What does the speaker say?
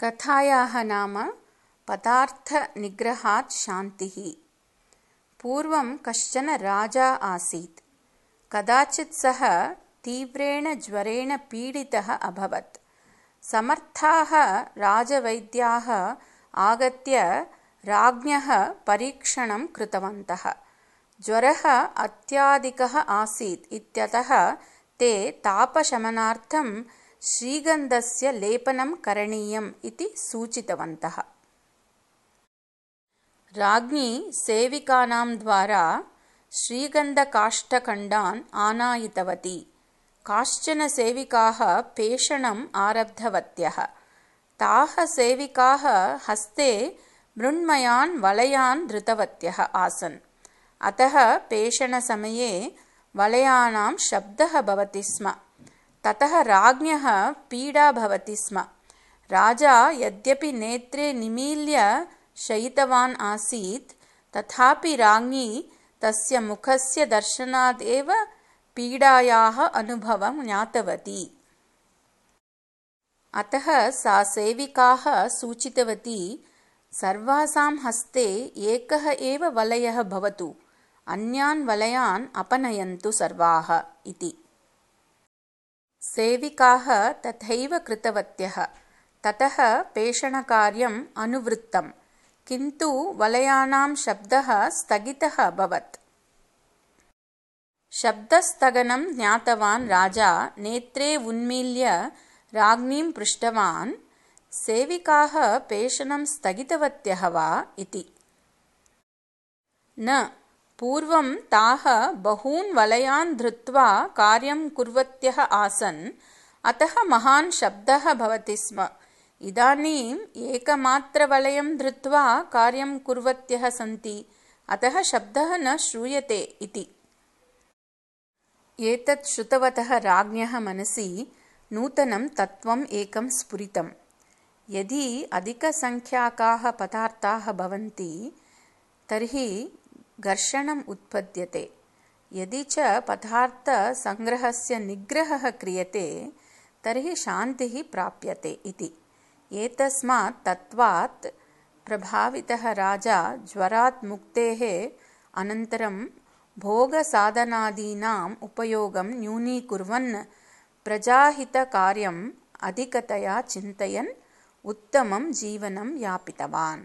कथायाः नाम पदार्थनिग्रहात् शान्तिः। पूर्वं कश्चन राजा आसीत्। कदाचित् सः तीव्रेण ज्वरेण पीडितः अभवत्। समर्थाः राजवैद्याः आगत्य राज्ञः परीक्षणं कृतवन्तः। ज्वरः अत्याधिकः आसीत् इत्यतः ते तापशमनार्थं श्रीगन्धस्य लेपनं करणीयम् इति सूचितवन्तः। राज्ञी सेविकानां द्वारा श्रीगन्धकाष्ठखण्डान् आनायितवती। काश्चन सेविकाः पेषणम् आरब्धवत्यः। ताः सेविकाः हस्ते मृण्मयान् वलयान् धृतवत्यः आसन्। अतः पेषणसमये वलयानां शब्दः भवति स्म। ततः राज्ञः पीडा भवति स्म। राजा यद्यपि नेत्रे निमील्य शयितवान् आसीत्, तथापि राज्ञी तस्य मुखस्य दर्शनात् एव पीडायाः अनुभवं ज्ञातवती। अतः सा सेविकाः सूचितवती, सर्वासां हस्ते एकः एव वलयः भवतु, अन्यान् वलयान् अपनयन्तु सर्वाः इति। सेविकाः तथैव कृतवत्यः। ततः पेषणकार्यम् अनुवृत्तम्, किन्तु वलयानां शब्दः स्थगितः अभवत्। शब्दस्थगनं ज्ञातवान् राजा नेत्रे उन्मील्य राज्ञीं पृष्टवान्, सेविकाः पेषणं स्थगितवत्यः वा इति। न, पूर्वं ताः बहून् वलयान् धृत्वा कार्यं कुर्वत्यः आसन्, अतः महान् शब्दः भवति स्म। इदानीम् एकमात्रवलयं धृत्वा कार्यं कुर्वत्यः सन्ति, अतः शब्दः न श्रूयते इति। एतत् श्रुतवतः राज्ञः मनसि नूतनं तत्त्वम् एकं स्फुरितम्। यदि अधिकसङ्ख्याकाः पदार्थाः भवन्ति तर्हि घर्षणम् उत्पद्यते। यदि च पदार्थसङ्ग्रहस्य निग्रहः क्रियते तर्हि शान्तिः प्राप्यते इति। एतस्मात् तत्त्वात् प्रभावितः राजा ज्वरात् मुक्तेः अनन्तरं भोगसाधनादीनाम् उपयोगं न्यूनीकुर्वन् प्रजाहितकार्यम् अधिकतया चिन्तयन् उत्तमं जीवनं यापितवान्।